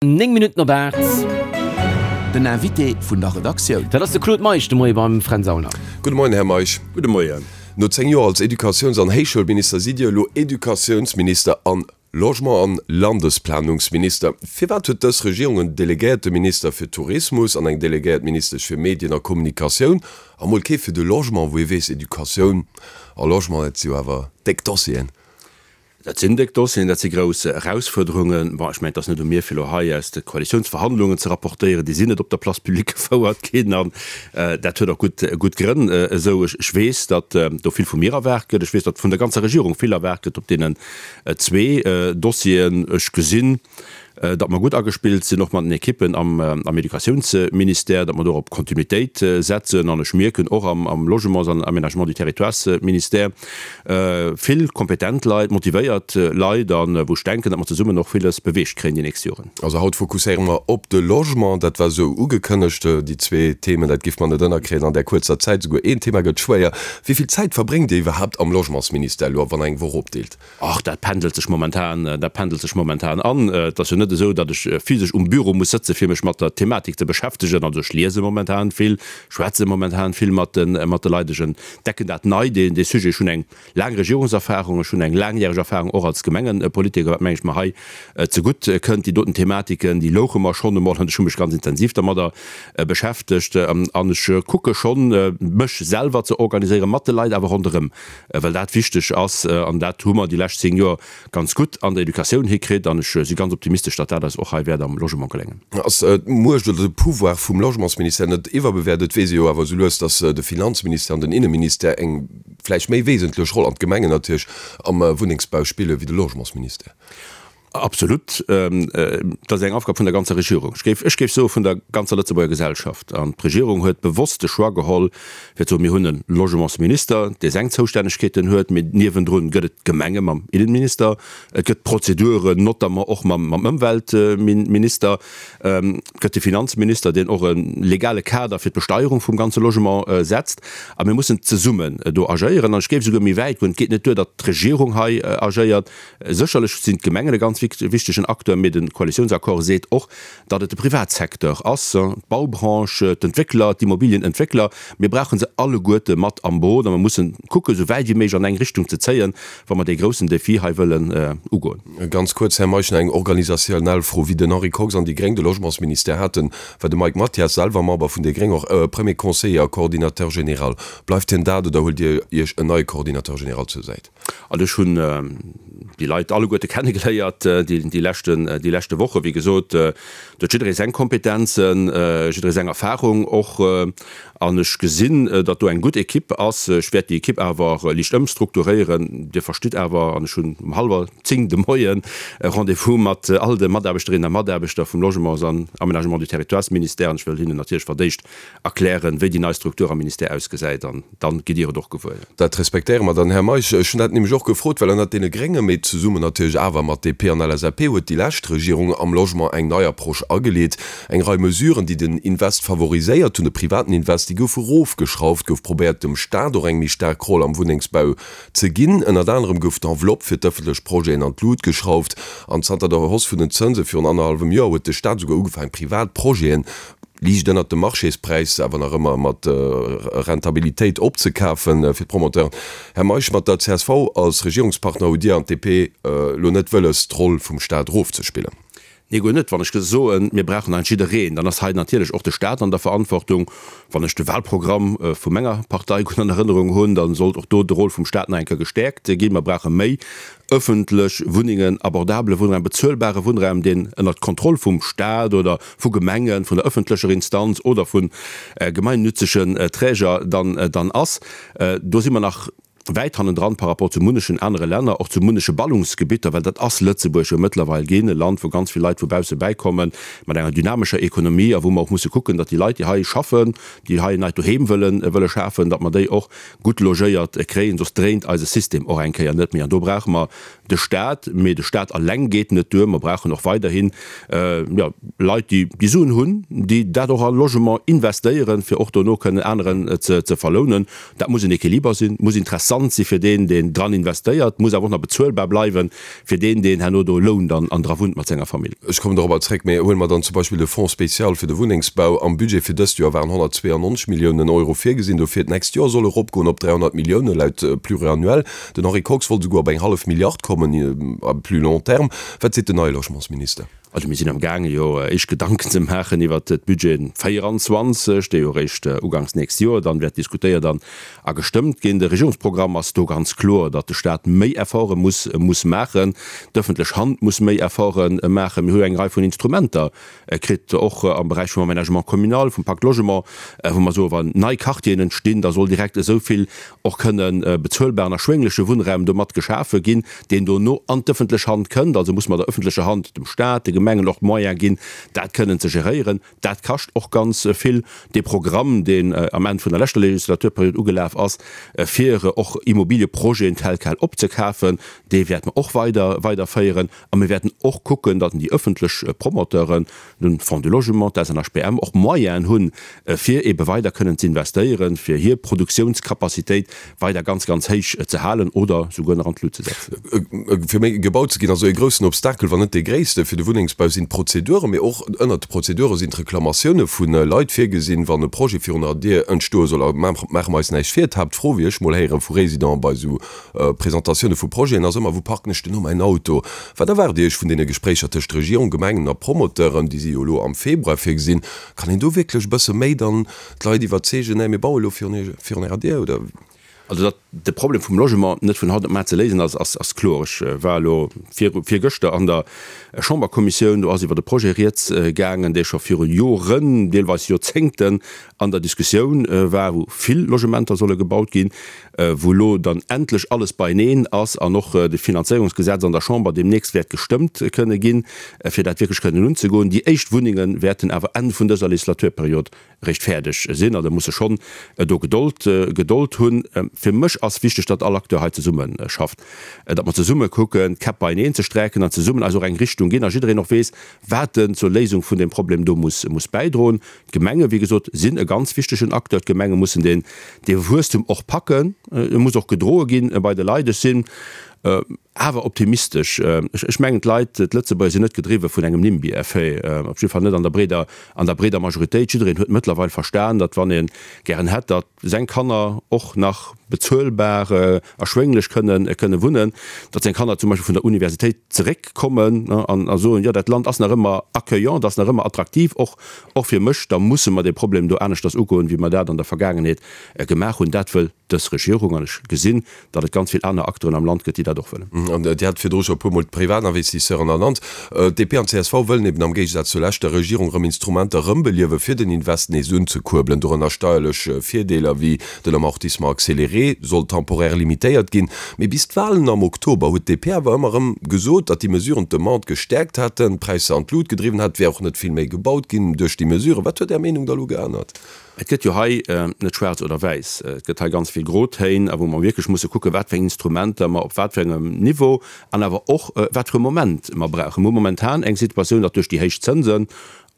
9 Minutten op 8. Den Invité vun der Redaktioun. Dat ass de Claude Meisch de Moie beim Fränz Aulner. Gudde Moien, Här Meisch. Gudde Moien. No 10 Joer als Educatiouns an Héichschoulminister sidd Dir elo Educatiounsminister an Logement an Landesplanungsminister. Firwat huet dës Regierung en delegéierte Minister fir Tourismus an eng delegéiert Ministesch fir Medien a Kommunikatioun a mol kee fir de Logement, wou ee weess, Educatioun a Logement, dat si jo awer déck Dossieren? Dat sinn déck Dossieren, dat si grouss Erausfuerderungen. Bon, ech mengen, et ass net u mir, fir elo hei aus de Koalitiounsverhandlungen ze rapportéieren. Déi sinn net op der Place publique gefouert ginn an dat huet och gutt, gutt Grënn esou. Ech weess, datt do vill vu mir erwaart gëtt. Ech weess, datt vun der ganzer Regierung vill erwaart gëtt op deenen zwee Dossieren. Ech gesinn, datt mer gutt agespillt sinn, och mat den Ekippen am Educatiounsministère, datt mer do op Kontinuitéit setzen. An ech mierken och am Logements an Aménagement du Territoires-Ministère vill kompetent Leit, motivéiert Leit, a wou ech denken, datt mer zesummen och villes beweegt kréien déi nächst Joren. Also haut fokusséiere mer op de Logement. Dat war esou ugekënnegt, déi zwee Themen, dat giff mer net ënnerkréien an där kuerzer Zäit. Esouguer een Thema gëtt schwéier. Wéi vill Zäit verbréngt Dir iwwerhaapt am Logementsministère elo, wann Der eng Woch opdeelt? Ach, dat pendelt sech momentan, dat pendelt sech momentan an. Et ass jo net esou, datt ech physesch um Büro muss sëtzen, fir mech mat der Thematik ze beschäftegen. Also ech liese momentan vill, schwätze momentan vill mat de, mat de Leit. Ech entdecken dat nei, dee, dee Sujet. Ech hunn eng laang Regierungserfahrung, ech hunn eng laangjäreg Erfahrung och als Gemengepolitiker, wat, meng ech, mer hei zegutt kënnt. Déi doten Thematiken, déi louche mer schonn emol an ech hu mech ganz intensiv dermadder beschäftegt. An ech kucke schonn, mech selwer ze organiséieren, mat de Leit awer ronderëm. well dat wichteg ass, an dat hu mer déi lescht 10 Joer ganz gutt an der Educatioun hikritt, an ech si ganz optimistesch, datt dat eis och hei wäert am Logement geléngen. Ass d'Muecht oder de Pouvoir vum Logementsministère net iwwerbewäert? Et weess ee jo awer esou lues, datt de Finanzministère an den Inneministère eng vläicht méi wesentlech Roll, an d'Gemengen natierlech, am Wunnengsbau spille wéi de Logementsministère. Absolut. Dat ass eng Aufgab vun der ganzer Regierung. Ech géif, ech géif soe vun der ganzer Lëtzebuerger Gesellschaft. An d'Regierung huet bewosst de Choix geholl, fir ze soen, mir hunn e Logementsminister, dee seng Zoustännegkeeten huet, mee niewendrun gëtt et d'Gemenge mam Innenminister, et gëtt d'Prozeduren, notamment och mam, mam Ëmweltminister, et gëtt de Finanzminister, deen och e legale Kader fir d'Besteierung vum ganze Logement setzt. A mir mussen zesummen do agéieren. An ech géif esouguer méi wäit goen, Et geet net duer, datt d'Regierung hei agéiert. Sécherlech sinn d'Gemengen e ganz wichtegen Acteur, mee de Koalitiounsaccord seet och, datt et de Privatsecteur ass, d'Baubranche, d'Entwéckler, d'Immobilienentwéckler. Mir brauche se alleguerte mat am Boot a mir mussen kucken, esou wäit wéi méiglech an eng Richtung ze zéien, wa mer dee groussen Defi hei wëllen ugoen. Ganz kuerz, Här Meisch, nach eng organisationnell Fro. Wéi den Henri Kox an déi Gréng de Logementsministère haten, war de Mike Mathias, selwer Member vun déi Gréng, och Premier Conseiller a Coordinateur général. Bleift hien dat oder huelt Dir Iech en neie Coordinateur général zur Säit? Also ech hunn déi Leit alleguerte kennegeléiert déi leschten, déi leschte Wochen. Wéi gesot, do huet jidderee seng Kompetenzen, jidderee seng Erfahrung och. An ech gesinn, datt do eng gutt Ekipp ass. Ech wäert déi Ekipp awer liicht ëmstrukturéieren. Dir verstitt awer, an ech hunn um hallwer 10 de Moien e Rendez-vous mat all de Mataarbechterinnen a Mataarbechter vum Logements an Aménagement du Territoires-Ministère an ech wëll hinnen natierlech fir d'éischt erklären, wéi déi nei Struktur am Ministère ausgesäit an dann gitt Dir et och gewuer. Dat respektéiere mer dann, Här Meisch. Ech hunn dat nämlech och gefrot, well ënnert deene Grénge, mee zesummen natierlech awer mat DP an LSAP, huet déi lescht Regierung am Logement eng nei Approche ageleet. Eng Rei Mesuren, déi den Invest favoriséiert hunn, de privaten Invest, déi goufe rofgeschrauft, gouf probéiert, dem Staat och eng méi staark Roll am Wunnengsbau ze ginn. Ënnert anerem gouf d'Enveloppe fir d'ëffentlech Projeten an d'Lut geschrauft an zanter der Hausse vun den Zënse virun annerhallwem Joer huet de Staat esouguer ugefaangen, privat Projeten, liicht ënnert dem Marchéspräis, awer nach ëmmer mat Rentabilitéit opzekafen fir d'Promoteuren. Här Meisch, mat der csv als Regierungspartner hutt Dir an d'DP elo net wëlles, d'Roll vum Staat erofzespillen? Nee, guer net. Wann ech soen, mir brauchen hei jiddereen, dann ass hei natierlech och de Staat an der Verantwortung. Wann ech de Wahlprogramm vu menger Partei gutt an Erënnerung hunn, da sollt och do de Rôle vum Staat nach eng Kéier gestäerkt ginn. Mer brauche méi ëffentlech Wunnengen, abordabele Wunnraum, bezuelbare Wunnraum, deen ënnert Kontroll vum Staat oder vu Gemengen, vun der ëffentlecher Instanz oder vu gemeinnützegen Träger dann dann ass. Do si mer nach wäit hannendran par rapport zu munnechen anere Länner, och zu munneche Ballungsgebitter, well dat ass Lëtzebuerg jo mëttlerweil ginn, e Land, wou ganz vill Leit vu bausse bäikommen, mat enger dynamescher Ekonomie a wou mer och musse kucken, datt déi Leit, déi hei schaffen, déi hei en neit Doheem wëllen wëlle schafen, datt mer déi och gutt logéiert kréien, soss dréint eise System och eng Kéier net méi. An do brauche mer de Staat, mee de Staat alleng geet net duer. Mer brauchen och weiderhin, jo, Leit, déi déi Suen hunn, déi dat och a Logement investéieren, fir och dono kënnen aneren ze ze verlounen. Dat muss en Equiliber sinn, muss interessant. Interessant si fir deen, deen dran investéiert, muss awer och nach bezuelbar bleiwen fir deen, deen herno do lount an an dra wunnt mat senger Famill. Ech kommen dorobber zréck, mee huele mer dann zum Beispill de Fonds spécial fir de Wunnengsbau. Am Budget fir dëst Joer waren 192 Milliounen Euro virgesinn dofir. D'nächst Joer soll eropgoen op 300 Milliounen, laut Pluriannuel. Den Henri Kox wollt esouguer op eng hallef Milliard kommen à plus long terme. Wat seet den neie Logementsminister? Also mir sinn am gaange jo éischt Gedanken ze maachen iwwert d'Budget 24, dee jo eréischt uganks nächst Joer dann wäert diskutéiert an a gestëmmt ginn. De Regierungsprogramm ass do ganz kloer, datt de Staat méi Efforte muss muss maachen, d'ëffentlech Hand muss méi Efforte maachen. Mir hu jo eng Rei vun Instrumenter kritt, och am Beräich vum Aménagement communal, vum Pacte Logement, wou mer soen, wann nei Quartieren entstinn, da soll direkt esou vill och kënne bezuelbaren, erschwéngleche Wunnraum domat geschafe ginn, deen dono an d'ëffentlech Hand kënnt. Also muss mer der ëffentlecher Hand, dem Staat, de Gemengen och d'Moyene ginn, dat kënnen ze geréieren. Dat kascht och ganz vill. Dee Programm, deen am Enn vun der leschter Legislaturperiod ugelaf ass, fir och Immobilieprojeten tel quel opzekafen, dee wäerte mer och weider weiderféieren. A mir wäerten och kucken, datt déi ëffentlech Promoteuren, de Fonds du Logement, d'SNHBM, och Moyenen hunn, fir eebe weider kënnen ze investéieren, fir hir Produktiounscapacitéit weider ganz, ganz héich ze halen oder souguer nach an d'Lut ze setzen. Fir méi gebaut ze ginn, also e groussen Obstakel, wann net dee gréisste fir de Wunnengsbau sinn d'Prozeduren, mee och ënnert de Prozedure sinn d'Reklamatioune vu Leit virgesinn, wann e Projet virun der Dier entstoe soll. A maache mer eis näischt vir, d'Haaptfro, wéi ech mol héiere vu Résidenten bei esou Presentatioune vu Projeten ass ëmmer, Wou parken ech denn elo mäin Auto? Wat erwaart Dir Iech vun deene Gespréicher tëscht Regierung, Gemengen a Promoteuren, déi si jo elo am Februar virgesinn? Kann een do wierklech e bësse méi dann d'Leit iwwerzeegen, Nee, mir baue elo virun Ärer Dier, oder? Also datt de Problem vum Logement net vun haut op mar ze léisen ass, ass kloer. Ech war elo virgëschter an der Chamberkommissioun, do ass iwwer e Projet rieds gaangen, dee scho viru Joren, deelweis Joerzéngten an der Diskussioun war, wou vill Logementer solle gebaut ginn, wou elo dann endlech alles beieneen ass an och de Finanzéierungsgesetz an der Chamber deemnächst wäert gestëmmt kënne ginn, fir dat wierklech kënnen unzegoen. Déi éischt Wunnenge wäerten awer Enn vun dëser Legislaturperiod eréischt fäerdeg sinn. Also musse schonn do Gedold, Gedold hunn. Fir mech ass wichteg, datt all Acteur hei zesumme schafft, datt mer zesumme kucken, d'Käpp beieneen ze sträiken an zesummen eis och eng Richtung ginn a jiddereen och weess, wat en zur Léisung vun deem Problem do muss, muss bäidroen. D'Gemenge, wéi gesot, sinn e ganz wichtegen Acteur. D'Gemenge mussen deen, dee Wuesstum och packen. E muss och gedroe ginn bei de Leit. Ech sinn awer optimistesch. Ech mengen, d'Leit, d'Lëtzebuerger sinn net gedriwwe vun engem Nimby-Effet, op jidde Fall net an der breeder, an der breeder Majoritéit. Jiddereen huet mëttlerweil verstan, datt wann ee gären hätt, datt seng Kanner och nach bezuelbar, erschwénglech kënnen, kënne wunnen, datt seng Kanner zum Beispill vun der Universitéit zeréckkommen an a soen, jo dat Land ass nach ëmmer accueillant, ass nach ëmmer attraktiv, och, och fir mech, da musse mer dee Problem do aneschters ugoen, wéi mer dat an der Vergaangenheet gemaach hunn. Dat wëll dës Regierung an ech gesinn, datt et ganz vill aner Acteuren am Land gëtt, déi dat och wëllen. An Dir hat virdru scho e puermol d'Privatinvestisseuren ernannt. DP an csv wëllen eben am Géigesaz zur leschter Regierung erëm Instrumenter erëmbeliewen, fir den Invest nees unzekuerbelen, dorënner steierlech Virdeeler wéi den Amortissement accéléré soll temporaire limitéiert ginn. Mee bis d'Walen am Oktober huet d'DP awer ëmmer erëm gesot, datt déi Mesuren d'Demande gestäerkt hätten, d'Präisser an d'Lut gedriwwen hätten. Et wär och net vill méi gebaut ginn duerch déi Mesuren. Wat huet Är Meenung da elo geännert? Et gëtt jo hei net schwaarz oder wäiss, et gëtt hei ganz vill Grotéin, a wou mer wierklech musse kucken, wat fir eng Instrumenter mer op wat fir engem Niveau an awer och wat fir e Moment mer brauchen. Mer hu momentan eng Situatioun, datt duerch déi héich Zënsen,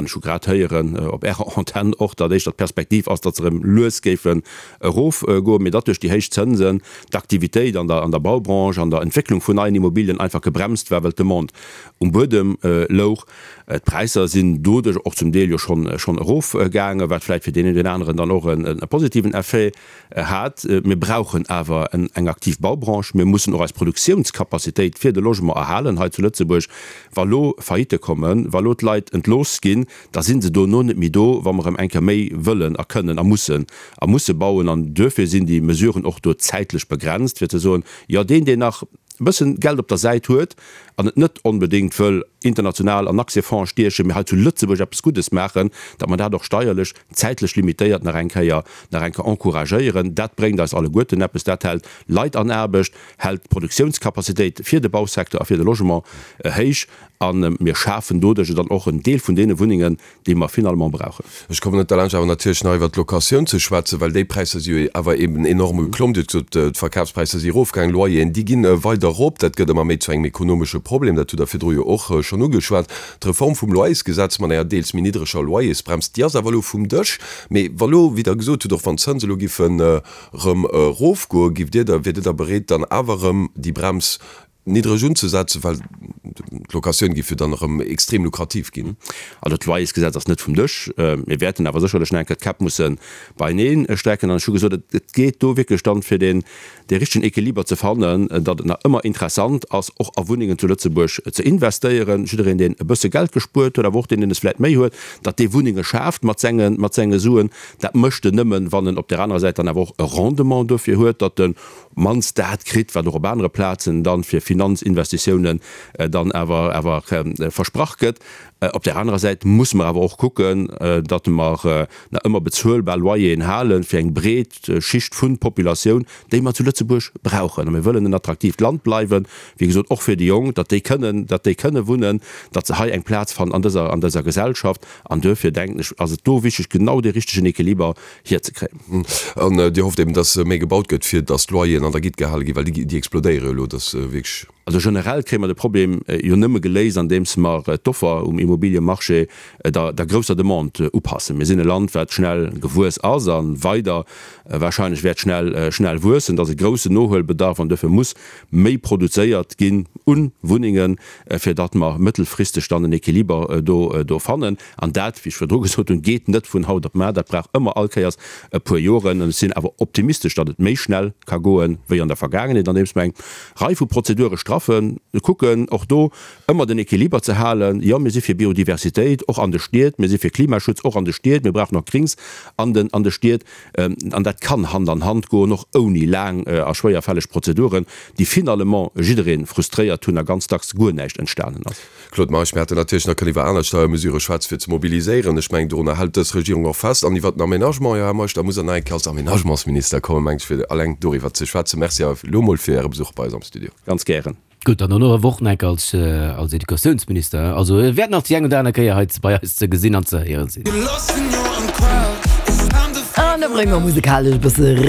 an ech hu grad héieren op Ärer Antenn och, datt éischter d'Perspektiv ass, datt se erëm lues géifen erofgoen, mee datt duerch déi héich Zënsen d'Aktivitéit an der an der Baubranche, an der Entwécklung vun neien Immobilien einfach gebremst war, well d'Demande um Buedem louch. D'Präisser sinn doduerch och zum Deel jo schonn erofgaangen, wat vläicht fir deen een oder deen aneren dann och e positiven Effet hat. Mir brauchen awer eng aktiv Baubranche. Mir mussen och eis Produktiounscapacitéit fir de Logement erhalen hei zu Lëtzebuerg. Wa lo Faillitte kommen, wa lo d'Leit entlooss ginn, da si se dono net méi do, wa mer erëm eng Kéier méi wëllen a kënnen a mussen a musse bauen. An duerfir sinn déi Mesuren och do zäitlech begrenzt, fir ze soen, jo deen, deen nach e bëssen Geld op der Säit huet an et net onbedéngt wëll international an Aktiefondse stiechen, mee hei zu Lëtzebuerg eppes Guddes maachen, datt mer dat och steierlech zäitlech limitéiert nach eng Kéier nach eng Kéier encouragéieren. Dat bréngt eis alleguerten eppes. Dat hält Leit an Aarbecht, hält d'Produktiounscapacitéit fir de Bausecteur a fir de Logement héich. A mir schafen doduerch dann och en Deel vun deene Wunnengen, déi mer finalement brauchen. Ech kommen net derlaanscht awer natierlech nach iwwert d'Locatioun ze schwätzen, well déi Präisser si jo awer eben enorm geklomm. Dir hutt gesot, d'Verkafspräisser si erofgaangen, Loyeren, déi ginn weider erop. Dat gëtt ëmmer méi zu engem ekonomesche Problem. Dat hutt Der virdru jo och schonn ugeschwat. D'Reform vum Loyersgesetz mat enger deels méi niddreger Loyersbrems, déi ass awer elo vum Dësch. Mee wa lo, wéi Der gesot hutt, och wann d'Zënse elo giffen erëm erofgoen, giff Dir da, wiert Dir da bereet, dann awer erëm déi Brems niddreg unzesetzen, well d'Locatioun géif jo dann erëm extrem lukrativ ginn. Also d'Loyersgesetz ass net vum Dësch. Mir wäerten awer sécherlech nach eng Kéier d'Käpp musse beienee strecken. An ech hu gesot, et geet do wierklech dann, fir deen dee richtegen Equiliber ze fannen, datt et nach ëmmer interessant ass, och a Wunnengen zu Lëtzebuerg ze investéieren. Jiddereen, deen e bësse Geld gespuert huet, awer och deen, deen es vläicht méi huet, datt dee Wunnenge schaaft mat senge mat senge Suen. Dat mécht en nëmmen, wann en op där anerer Säit dann awer och e Rendement dofir huet, datt en mannst dat kritt, wat och op anere Plazen dann fir Finanzinvestitiounen dann awer awer versprach gëtt. Op där anerer Säit musse mer awer och kucken, datt mer nach ëmmer bezuelbar Loyeren hale fir eng breet Schicht vun Populatioun, déi mer zu Lëtzebuerg brauchen. A mir wëllen en attraktiivt Land bleiwen, wéi gesot, och fir déi Jonk, datt déi kënnen, datt déi kënne wunnen, datt se hei eng Plaz fannen an dëser, an dëser Gesellschaft. An duerfir, denken ech, ass et do wichteg, genau dee richtegen Equiliber hierzekréien. An Dir hofft eben, dass méi gebaut gëtt, fir dass d'Loyeren an der Gitt gehale ginn, well déi, déi explodéiere jo elo, dass wierklech. Also generell kréie mer de Problem jo nëmme geléist, andeems mer d'Offer um Immobiliemarché der, der grousser Demande upassen. Mir sinn e Land, wat schnell gewuess ass a weider wahrscheinlech wäert schnell, schnell wuessen. Et ass e groussen Nohuelbedarf an duerfir muss méi produzéiert ginn u Wunnengen, fir datt mer mëttelfristeg dann en Equiliber do, do fannen. An dat, wéi ech virdru gesot hunn, geet net vun haut op mar, dat brauch ëmmer all Kéiers e puer Joren. An ech sinn awer optimistesch, datt et méi schnell ka goen, wéi an der Vergaangenheet, andeems mer eng Rei vu Prozedure straffen, kucken och do ëmmer den Equiliber ze halen. Jo, mir si fir Biodiversitéit, och an de Stied, mir si fir Klimaschutz, och an de Stied, mir brauchen och Grings an den, an de Stied. An dat kann Hand an Hand goen, och ouni laang a schwéierfälleg Prozeduren, déi finalement jidderee frustréiert hunn a ganz dacks guer näischt entstanen ass. Claude Meisch, Mir hätten natierlech nach kënnen iwwer aner Steiermesurë schwätzen, fir ze mobiliséieren. Ech mengen, dorunner hält dës Regierung och fest. An iwwer den Aménagement, jo, Här Meisch, da muss Der nach eng Kéier als Aménagementsminister kommen, meng ech, fir alleng doriwwer ze schwätzen. Merci awer elo emol fir Äre Besuch bei eis am Studio. Ganz gären. Gutt, an dono awer och nach eng Kéier als, als Educatiounsminister. Also e wäert nach déi eng oder aner Kéier hei bei eis ze gesinn an ze héiere sinn. An da brénge mer musekalesch e bësse.